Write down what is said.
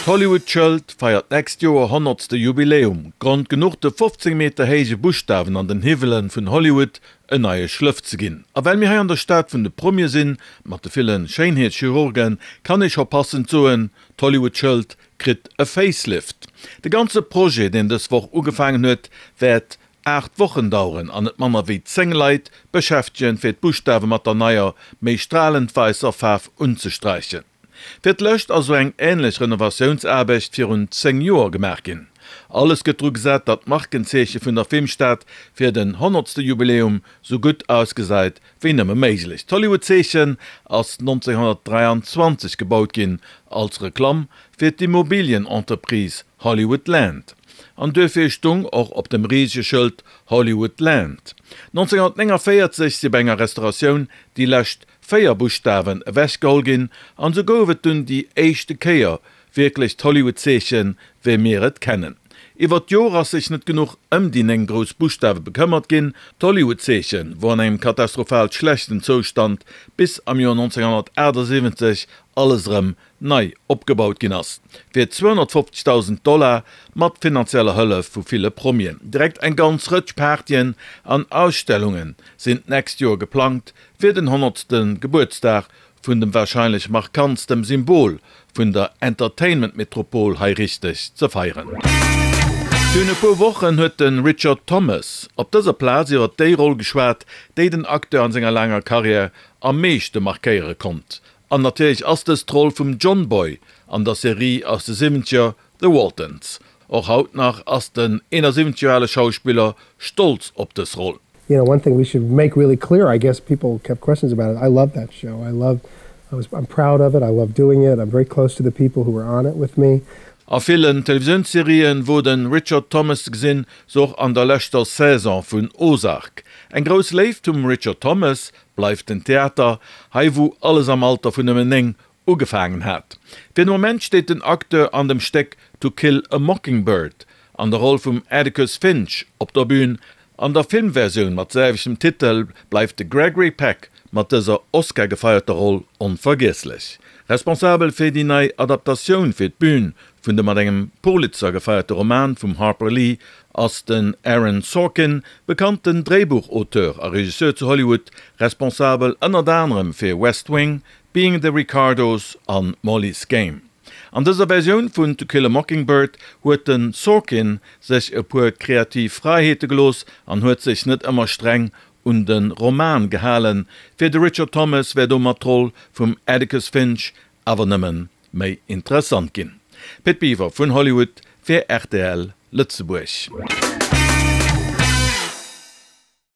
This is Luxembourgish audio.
D'Hollywood-Schëld feiert d'nächst Joer honnertste Jubiläum. Grond genuch de 15 Meter héije Buschtawen an den Hiwwele vun Hollywood en neie Schlëff ze ginn. A well mir hei an der Stad vun de Promie sinn, mat de ville Schéinheetschirurgen, kann ee scho passend soen, d'Hollywood-Schëld kritt e Facelift. De ganze Projet, deen dës Woch ugefaangen huet, wäert 8 Wochen daueren an net manner wéi 10 Leit beschäftegen, fir d'Buschtawe mat der neier, méi stralend wäisser Faarf unzesträichen. Fir d'lescht ass esou eng änlech Renovatiounsaarbecht virun 10 Joer gemaach ginn. Alles gëtt dru gesat, datt d'Markenzeeche vun der Filmstad fir den honnertste Jubiläum sou gutt ausgesäit wéi nëmme méiglech. D'Hollywood-Zeechen ass 1923 gebaut ginn als Reklamm fir d'Immobilienentreprise Hollywood Land. An duerfir stung och op dem risege Schëld Hollywood Land. 1949 si bei enger Restauratioun déi lescht 4 Buschtawen ewechgeholl ginn an sou gouf et dunn déi éischte Kéier wierklech d'Hollywood-Zeechen wéi mir et kennen. Iwwer d'Jore ass sech net genuch ëm déi 9 grouss Buschtawe bekëmmert ginn. D'Hollywood-Zeeche wor an engem katastrophal schlechten Zoustand bis am Joer 1978 alles erëm nei opgebaut ginn ass, fir 250.000 Dollar mat finanzieller Hëllef vu ville Promien. Direkt eng ganz Rëtsch Partyen an Ausstellunge sinn d'nächst Joer geplangt fir den honnertste Gebuertsdag vun dem warscheinlech markantstem Symbol vun der Entertainment-Metropol hei richteg ze feieren. Virun e puer Wochen huet de Richard Thomas op dëser Plaz iwwer déi Roll geschwat, déi den Acteur an senger laanger Karriär am meeschte markéiere konnt. An natierlech ass dës d'Roll vum John Boy an der Serie aus de Siwwenzeger The Waltons. Och haut nach ass den 71 Joer ale Schauspiller stolz op dës Roll. You know, one thing we should make really clear, I guess people kept questions about it, I love that show, I love, I was, I'm proud of it, I love doing it, I'm very close to the people who were on it with me. A villen Televisiounsserien wor de Richard Thomas ze gesinn, sou och an der leschter Saison vun Ozark. Eng grouss Léift vum Richard Thomas bleift den Theater, hei wou alles am Alter vun nëmmen 9 ugefaangen hat. Fir de Moment steet den Acteur an dem Stéck To Kill a Mockingbird an der Roll vum Atticus Finch op der Bün. An der Filmversioun mat selwechtem Titel bleift de Gregory Peck mat dëser Oscar-gefeierter Roll onvergiesslech. Responsabel fir déi nei Adaptatioun fir d'Bün vun dem mat engem Pulitzer gefeierte Roman vum Harper Lee ass den Aaron Sorkin, bekannten Dréibuchauteur a Regisseur zu Hollywood, responsabel ënnert anerem fir West Wing, Being the Ricardos an Molly's Game. An dëser Versioun vun To Kill a Mockingbird huet de Sorkin sech e puer kreativ Fräiheete gelooss an huet sech net ëmmer streng un de Roman gehalen. Fir de Richard Thomas wär domat d'Roll vum Atticus Finch awer nëmmen méi interessant ginn. Pit Biwer vun Hollywood fir rtl Lëtzebuerg.